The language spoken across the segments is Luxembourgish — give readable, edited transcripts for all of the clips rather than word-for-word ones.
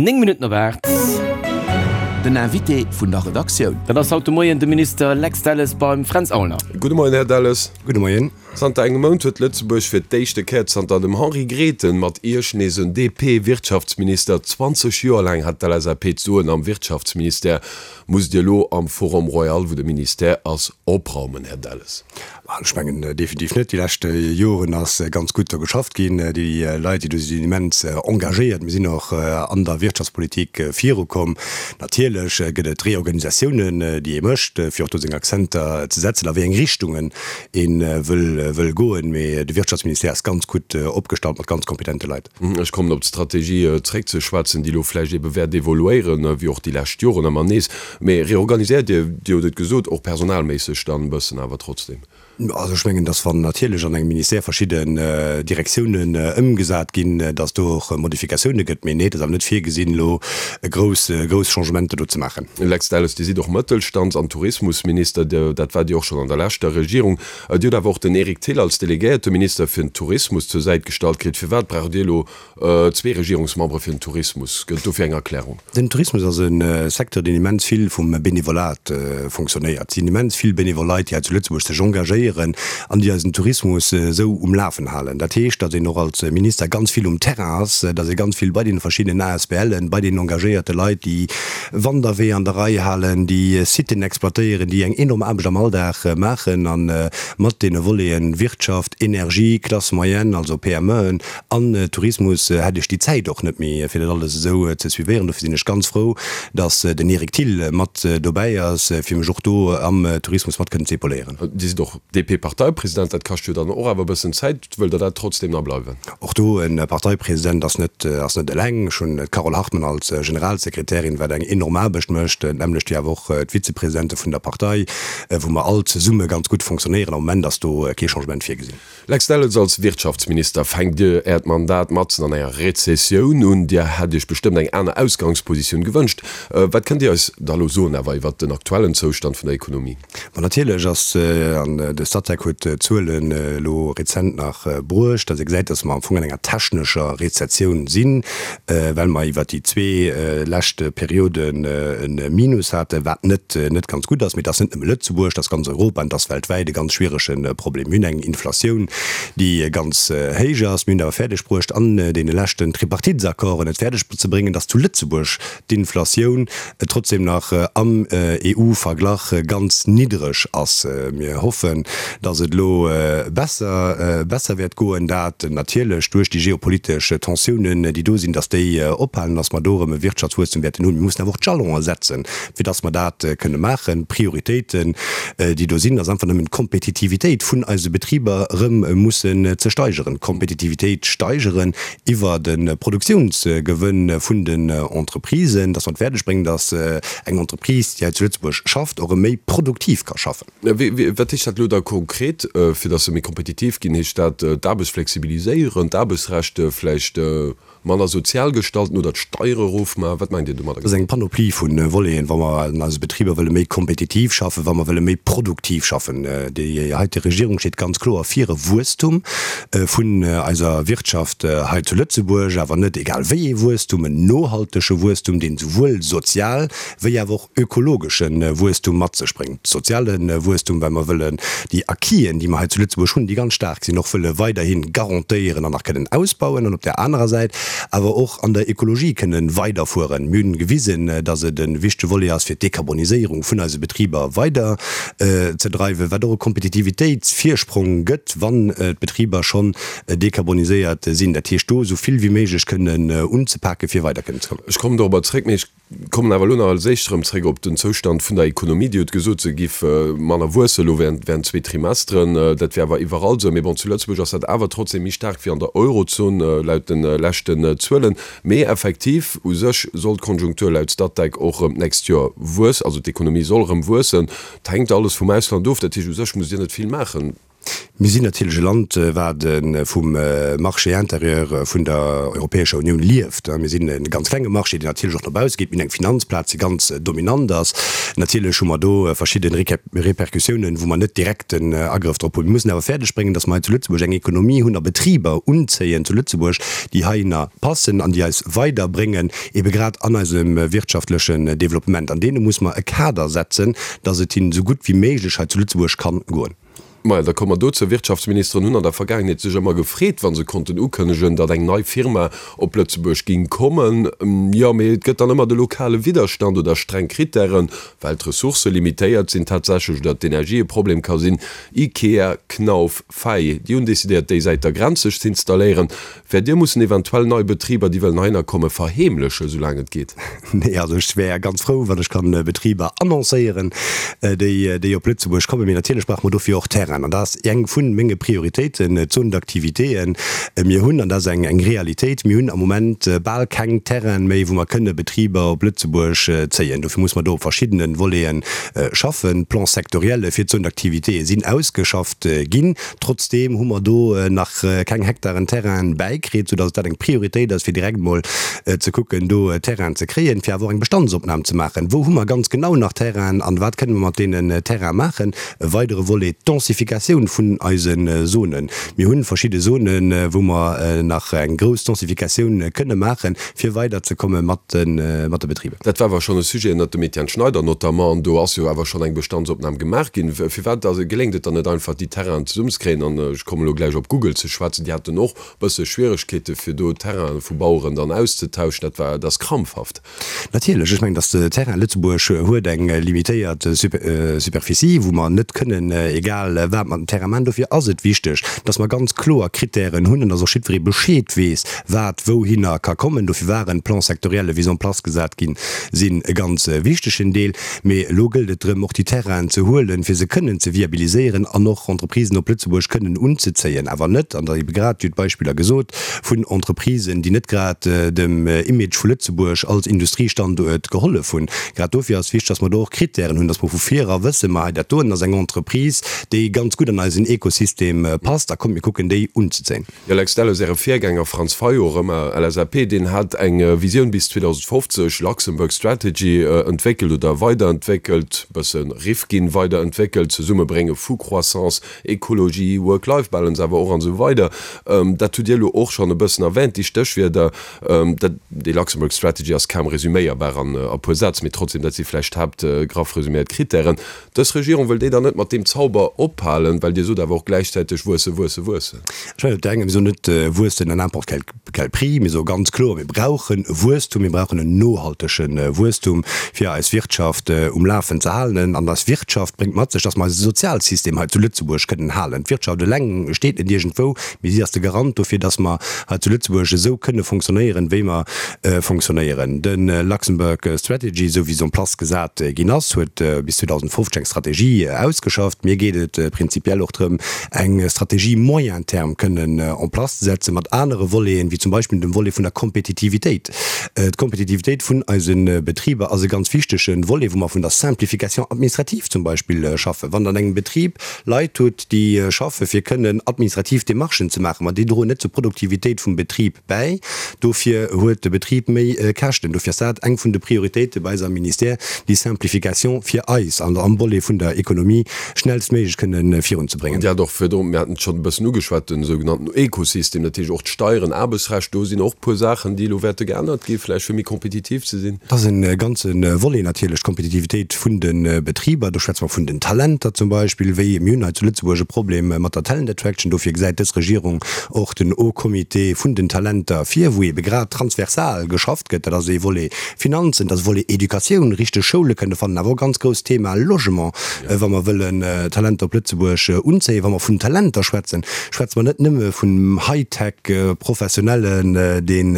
9 Minutten op 8. Den Invité vun der Redaktioun. Dat ass haut de Moien de Minister Lex Delles beim Fränz Aulner. Gudde Moien, Här Delles. Gudde Moien. Zanter engem Mount huet Lëtzebuerg fir d'éischte Kéier zanter dem Henri Grethen mat Iech nees en DP-Wirtschaftsminister. 20 Joer laang hat d'LSAP d'Soen am Wirtschaftsministère. Musst Dir elo am Forum Royal, wou de Ministère ass, opraumen, Här Delles? Ech mengen definitiv net. Déi lescht Joren ass ganz gutt do geschafft ginn. Déi Leit, déi do sinn, sinn immens engagéiert. Mir sinn och an der Wirtschaftspolitik virukomm. Natierlech gëtt et Reorganisatiounen, déi ee mécht, fir och do seng Akzenter ze setzen, a wéi eng Richtungen ee wëll goen. Mee de Wirtschaftsministère ass ganz gutt opgestallt mat ganz kompetente Leit. Ech kommen op d'Strategie zréck ze schwätzen, déi elo vläicht ebe wäert evoluéieren, wéi och déi lescht Joren ëmmer nees. Mee reorganiséiert Dir, Dir hutt et gesot, och personalméisseg dann e bëssen awer trotzdem? Also ech mengen, dass wann natierlech an engem Ministère verschidden Direktiounen ëmgesat ginn, dass do och Modifikatioune gëtt. Mee nee, et ass awer net virgesinn, elo grouss, grouss Changementer do ze maachen. Lex Delles, Dir sidd och Mëttelstands an Tourismusminister, dat waart Dir och schonn an der leschter Regierung. Dir hutt awer och den Eric Thill als delegéierte Minister fir den Tourismus zur Säit gestallt kritt. Firwat braucht Dir elo zwee Regierungsmembere fir den Tourismus? Gëtt et dofir eng Erklärung? Den Tourismus ass e Secteur, deen immens vill vum Benevolat fonctionnéiert. Et sinn immens vill benevol Leit, déi hei zu Lëtzebuerg sech engagéieren an déi eisen Tourismus esou um Lafen halen. Dat heescht, datt een och als Minister ganz vill um Terrain ass, datt ee ganz vill bei deene verschiddenen ASBLen, bei deenen engagéierte Leit, déi Wanderweeër an der Rei halen, déi Siten exploitéieren, déi eng enorm Aarbecht am Alldag maachen a mat deene Voleten Wirtschaft, Energie, Classe moyenne, also PMEen an Tourismus, hätt ech déi Zäit och net méi, fir dat alles esou ze suivéieren. Dofir sinn ech ganz frou, datt den Eric Thill mat dobäi ass, fir mech och do am Tourismus mat kënnen ze épauléieren. Dir sidd och DP-Parteipresident, dat kascht jo dann och awer e bëssen Zäit. Wëllt Der dat trotzdem nach bleiwen? Och do, e Parteipresident ass net, ass net eleng. Ech hunn d'Carole Hartmann als Generalsekretärin, wat eng enorm Aarbecht mécht, d'nämmlecht wéi awer och d'Vizepresidente vun der Partei, wou mer all zesumme ganz gutt fonctionnéieren. Am Moment ass do kee Changement virgesinn. Lex Delles, Als Wirtschaftsminister fänkt Dir Äert Mandat matzen an enger Rezessioun un. Dir hätt Iech bestëmmt eng aner Ausgangspositioun gewënscht. Wat kënnt Dir eis da elo soen awer iwwert den aktuellen Zoustand vun der Ekonomie? Ma natierlech ass, an de Statec huet d'Zuelen elo rezent nach bruecht, datt ee gesäit, datt mer am Fong an enger technescher Rezessioun sinn, well mer iwwert déi zwee lescht Perioden e Minus haten, wat net net ganz gutt ass. Mee et ass net nëmme Lëtzebuerg, et ass ganz Europa an et ass weltwäit e ganz schwierege Problem. Mir hunn eng Inflatioun, déi ganz héich ass. Mir hunn et awer fäerdeg bruecht, an deene leschten Tripartitesaccorden et fäerdeg ze bréngen, datt zu Lëtzebuerg d'Inflatioun trotzdem nach am EU-Verglach ganz niddreg ass. Mir hoffen, datt et elo besser besser wäert goen, dat natierlech duerch déi geopolitesch Tensiounen, déi do sinn, datt déi ophalen, datt mer do erëm e Wirtschaftswuesstum wäerten hunn. Mir mussen awer och d'Jalonen setzen, fir datt mer dat kënne maachen. D'Prioritéiten, déi do sinn, ass einfach nëmmen d'Kompetitivitéit vun eise Betriber erëm mussen ze steigeren. D'Kompetitivitéit steigeren iwwer de Produktiounsgewënn vun den Entreprisen, dass mer et fäerdeg bréngen, dass eng Entreprise, déi hei zu Lëtzebuerg schafft, och erëm méi produktiv ka schaffen. Wat heescht dat elo da konkret, fir dass se méi kompetitiv ginn? Heescht dat d'Aarbecht flexibiliséieren, d'Aarbechtsrecht vläicht manner sozial gestalten oder d'Steiere erofmaachen? Wat mengt Dir domadder Dat ass eng Panoplie vu Voleten, wa mer an eise Betriber wëlle méi kompetitiv schaffen, wa mer wëlle méi produktiv schaffen. Déi heite Regierung steet ganz kloer fir e Wuesstum. vun eiser Wirtschaft hei zu Lëtzebuerg, awer net egal wéi ee Wuesstum, en nohaltege Wuesstum, deen souwuel sozial wéi awer och ökologesche Wuesstum mat sech bréngt. Soziale Wuesstum, well mer wëllen déi Acquisen, déi mer hei zu Lëtzebuerg hunn, déi ganz staark sinn, och wëlle weiderhi garantéieren an nach kënnen ausbauen, an op där anerer Säit awer och an der Ökologie kënnen weiderfueren. Mir hunn gewisen, dass et e wichtege Volet ass, fir d'Dekarboniséierung vun eise Betriber weider ze dreiwen, wat och e Kompetitivitéitsvirsprong gëtt, wann d'Betriber schonn dekarboniséiert sinn. Dat heescht, do esou vill wéi méiglech kënnen unzepaken, fir weider kënnen ze kommen. Ech kommen dorobber zréck, mee ech kommen awer elo nach als éischt erëm zréck op den Zoustand vun der Ekonomie. Dir hutt gesot, se géif manner wuessen elo während zwee Trimesteren. Dat wär awer iwwerall esou. Mee bon, zu Lëtzebuerg ass dat awer trotzdem méi staark wéi an der Eurozon, laut de leschten Zuelen. Mee effektiv, u sech soll d'Konjunktur laut Statec och erëm d'nächst Joer wuessen, also d'Ekonomie soll erëm wuessen. Et hänkt alles vum Ausland of. Dat heescht, u sech musst Dir net vill maachen. Mir sinn natierlech e Land, wat vum Marché intérieur vun der Europäescher Unioun lieft. Mir sinn e ganz klenge Marché, deen natierlech och no bausse geet. Mir hunn eng Finanzplaz, déi ganz dominant ass. Natierlech hu mer do verschidde Repercussiounen, wou mer net direkt den Agrëff drop hunn. Mir mussen awer fäerdeg bréngen, datt mer hei zu Lëtzebuerg eng Ekonomie hunn a Betriber unzéien zu Lëtzebuerg, déi heihinner passen an déi eis weiderbréngen, ebe grad an eisem wirtschaftlechen Développement. An deene muss mer e Kader setzen, datt et hinnen esou gutt wéi méiglech hei zu Lëtzebuerg kann goen. Maja, da komme mer dozou. Wirtschaftsministeren hunn an der Vergaangenheet sech ëmmer gefreet, wa se konnten ukënnegen, datt eng nei Firma op Lëtzebuerg ging kommen. Jo, mee et gëtt dann ëmmer de lokale Widderstand oder streng Krittären, well d'Ressourcë limitéiert sinn tatsächlech oder d'Energie e Problem ka sinn. Ikea, Knauf, Fay, déi hunn decidéiert, déi Säit der Grenz sech z'installéieren. Wäert Dir mussen eventuell nei Betriber, déi wëllen heihinner kommen, verheemlechen, soulaang et geet? Nee, also ech wär ganz frou, wann ech kann Betriber annoncéieren, déi, déi op Lëtzebuerg kommen. Mee natierlech brauche mer dofir och Terrainen. An dat ass eng vu menge Prioritéiten, d'Zone d'activitéen. Mir hunn, an dat ass eng, eng Realitéit, mir hunn am Moment bal keng Terraine méi, wou mer kënne Betriber op Lëtzebuerg zéien. Dofir muss mer do op verschiddene Voleten schaffen. D'Plans sectoriels fir d'Zone d'activitéë sinn ausgeschafft ginn. Trotzdeem hu mer do nach keng Hektaren Terrainen bäikritt, soudass dat eng Prioritéit ass, fir direkt mol ze kucken, do Terrainen ze kréien, fir awer och eng Bestandsopnam ze maachen. Wou hu mer ganz genau nach Terrainen an wat kënne mer mat deenen Terraine maachen? E weidere Volet, d'Densifikatioun vun eise Zonen. Mir hu verschidde Zonen, wou mer nach eng grouss Densifikatioun kënne maachen, fir weiderzekomme mat de Betriber. Dat war awer schonn e Sujet ënnert dem Etienne Schneider notamment, an do ass jo awer schonn eng Bestandsopnam gemaach ginn. Firwat geléngt et dann net einfach, déi Terrainen zesummzekréien? An ech kommen elo gläich op Google ze schwätzen, déi haten och e bësse Schwieregkeete fir do Terraine vu Baueren dann auszetauschen. Dat war, dat ass krampfhaft. Natierlech, ech mengen, datt de Terrain Lëtzebuerg huet eng limitéiert Superficie, wou mer net kënnen egal wat mat dem Terrain maachen. Dofir ass et wichteg, datt mer ganz kloer Krittären hunn an datt och jiddweree Bescheed weess, wat wouhinner ka kommen. Dofir waren d'Plans sectoriels, wéi se en place gesat ginn sinn, e ganz wichtegen Deel. Mee elo gëllt et drëm, och déi Terrainen ze huelen, fir se kënnen ze viabiliséieren an och Entreprisen op Lëtzebuerg kënnen unzezéien. Awer net, an der ebe grad, Dir hutt d'Beispiller gesot, vun Entreprisen, déi net grad dem Image vu Lëtzebuerg als Industriestanduert gehollef hunn. Grad dofir ass wichteg, dass mer do och Krittären hunn, dass mer vu vir era wëssen, ma hei dat doen ass eng Entreprise, déi ganz gutt an eisen Ekosystem passt, a kommt mir kucken déi unzezéien. Jo, Lex Delles, Äre Virgänger Franz Fayot, erëm LSAP, deen hat eng Visioun bis 2050, Luxembourg Strategy, entwéckelt oder weiderentwéckelt, bësse Rifkin weiderentwéckelt, Zesummebrénge vu Croissance, Ekologie, Work-Life-Balance awer och an esou weider. Dat hutt Dir elo och schonn e bëssen erwähnt, déi Stéchwierder. Dat, déi Luxembourg Strategy ass kaum resüméierbar an e puer Sätz, mee trotzdem, dat si vläicht d'Haapt, graff resüméiert Krittären. Dës Regierung wëll déi dann net mat deem Zauber ophalen, well Dir sot awer och gläichzäiteg wuesse, wuesse, wuessen. Ech mengen op der enger, mir soen net wuessen à n'importe quel quel prix, mir soe ganz kloer, mir brauchen e Wuesstum, mir brauchen en nohaltege Wuesstum, fir eis Wirtschaft um Lafen ze halen. An eis Wirtschaft bréngt mat sech, datt mer eise Sozialsystem hei zu Lëtzebuerg kënnen halen. D'Wirtschaft eleng steet net iergendwou, mee si ass de Garant dofir, datt mer hei zu Lëtzebuerg esou kënne fonctionnéieren, wéi mer fonctionnéieren. De Luxembourg Strategy, esou wéi se en place gesat ginn ass, huet bis 2050 eng Strategie ausgeschafft. Mir geet et prinzipiell och drëm, eng Strategie moyen terme kënnen en place ze setzen, mat anere Voleten, wéi zum Beispill dem Volet vun der Kompetitivitéit. D'Kompetitivitéit vun eise Betriber ass e ganz wichtege Volet, wou mer vun der Simplification administrative zum Beispill schaffen. Wann Der an engem Betrib Leit hutt, déi schaffe fir kënnen administrativ Démarchen ze maachen, ma déi droen net zur Produktivitéit vum Betrib bäi. Dofir huet de Betrib méi Käschten. Dofir ass dat eng vun de Prioritéite bei eis am Ministère, déi Simplification fir eis an am Volet vun der Ekonomie schnellstméiglech kënne virunzebréngen. An Dir hat och virdrun, mir haten et schonn e bëssen ugeschwat, den sougenannten Ökosystem, dat heescht och d'Steieren, Aarbechtsrecht, do sinn och e puer Saachen, déi elo wäerte geännert gi vläicht, fir méi kompetitiv ze sinn. Dat ass e ganze Volet natierlech, d'Kompetitivitéit vun de Betriber. Do schwätze mer vun den Talenter zum Beispill, wéi mir hunn hei zu Lëtzebuerg e Problem mat der Talent Attraction. Dofir gesäit dës Regierung och den Haut Comité vun den Talenter vir, wou eebe grad transversal geschafft gëtt. Dat ass ee Volet Finanzen, dat ass e Volet Educatioun, richteg Schoule kënne fannen, awer och ganz grousst Thema Logement, wa mer wëllen Talenter op Lëtzebuerg unzéien. Wa mer vun Talenter schwätzen, schwätze mer net nëmme vun High-Tech-Professionellen, deen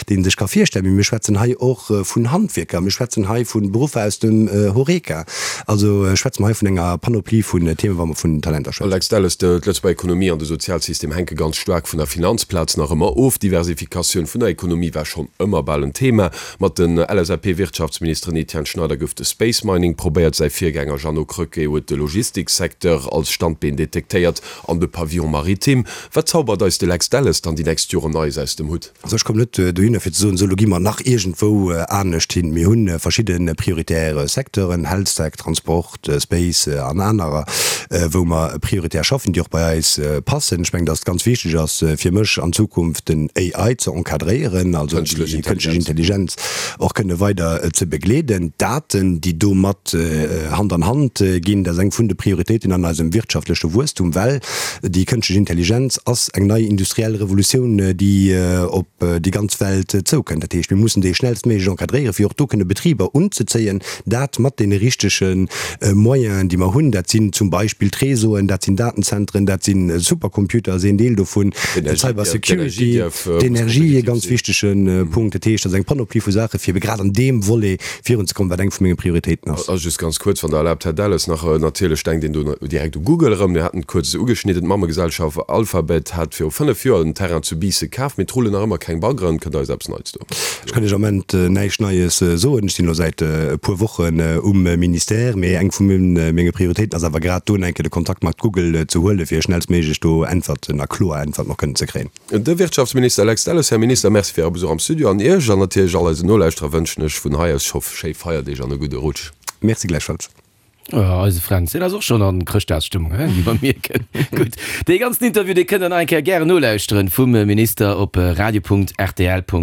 dee sech ka virstellen, mee mir schwätzen hei och vun Handwierker, mir schwätzen hei vu Beruffer aus dem Horeca. Also schwätze mer hei vun enger Panoplie vun Themen, wa mer vun Talenter schwätzen. Alex Delles, D'Lëtzebuerger Ekonomie an de Sozialsystem hänke ganz staark vun der Finanzplaz nach ëmmer of. D'Diversifikatioun vun der Ekonomie war schonn ëmmer bal en Thema. Mat den LSAP-Wirtschaftsministeren Etienne Schneider gouf de Space Mining probéiert, säi Virgänger Jeannot Krecké huet de Logistiksecteur als. als Standbeen detektéiert an de Pavillon maritime. Wat zaubert eis de Lex Delles dann déi nächst Joren Neies aus dem Hutt? Also ech kommen net dohinner fir ze soen, esou elo gi mer nach iergendwou anescht hin. Mir hu verschidde prioritär Secteuren, Healthtech, Transport, Space an anerer, wou mer prioritär schaffen, déi och bei eis passen. Ech mengen, datt et ganz wichteg ass fir mech an Zukunft den AI ze encadréieren, also déi kënschtlech Intelligenz och kënne weider ze begleeden. D'Daten, déi domat Hand an Hand ginn, dat ass eng vun de Prioritéiten an eisem wirtschaftleche Wuesstum, well Déi kënschtlech Intelligenz ass eng nei industriell Revolutioun, déi op déi ganz Welt zoukënnt. Dat heescht, mir mussen déi schnellstméiglech encadréieren, fir och do kënne Betriber unzezéien, dat mat deene richtege Moyenen, déi mer hunn. Dat sinn zum Beispill d'Réseauen, dat sinn Datenzentren, dat si Supercomputer ass een Deel dovun, d'Cybersecurity, d'Energie, e ganz wichtege Punkt. Dat heescht, dat ass eng Panoplie vu Saachen, fir ebe grad an deem Volet virunzekommen, wat eng vu menge Prioritéiten ass. A just ganz kuerz, wann Der erlaabt, Här Delles, nach, Natierlech denkt een do direkt u Google erëm. Mir haten et kuerz ugeschnidden, D'Mammegesellschaft Alphabet hat viru 5 Joer en Terrain zu Biissen kaf, mee et rullen nach ëmmer keng Baggeren. Kënnt Der eis eppes Neits do? Ech kann Iech am Moment näischt Neies soen. Ech sinn elo säit e puer Wochen um Ministère, mee eng vu menge Prioritéiten ass awer grad do eng Kéier de Kontakt mat Google ze huelen, fir schnellstméiglech do Äntwerten a kloer Äntwerten och kënnen ze kréien. De Wirtschaftsminister Lex Delles. Här Minister, Merci fir Äre Besuch am Studio. An Iech an natierlech all eisen Nolauschterer wënschen ech vun hei aus scho schéi Feierdeeg an e gudde Rutsch. Merci gläichfalls. Oh, eise Fränz, deen ass och schonn an Chrëschtdagsstëmmung, hein, wéi mer mierken. Gutt, dee ganzen Interview, dee kënnt der nach eng Kéier gären nolauschteren vum Minister op radio.rtl.lu.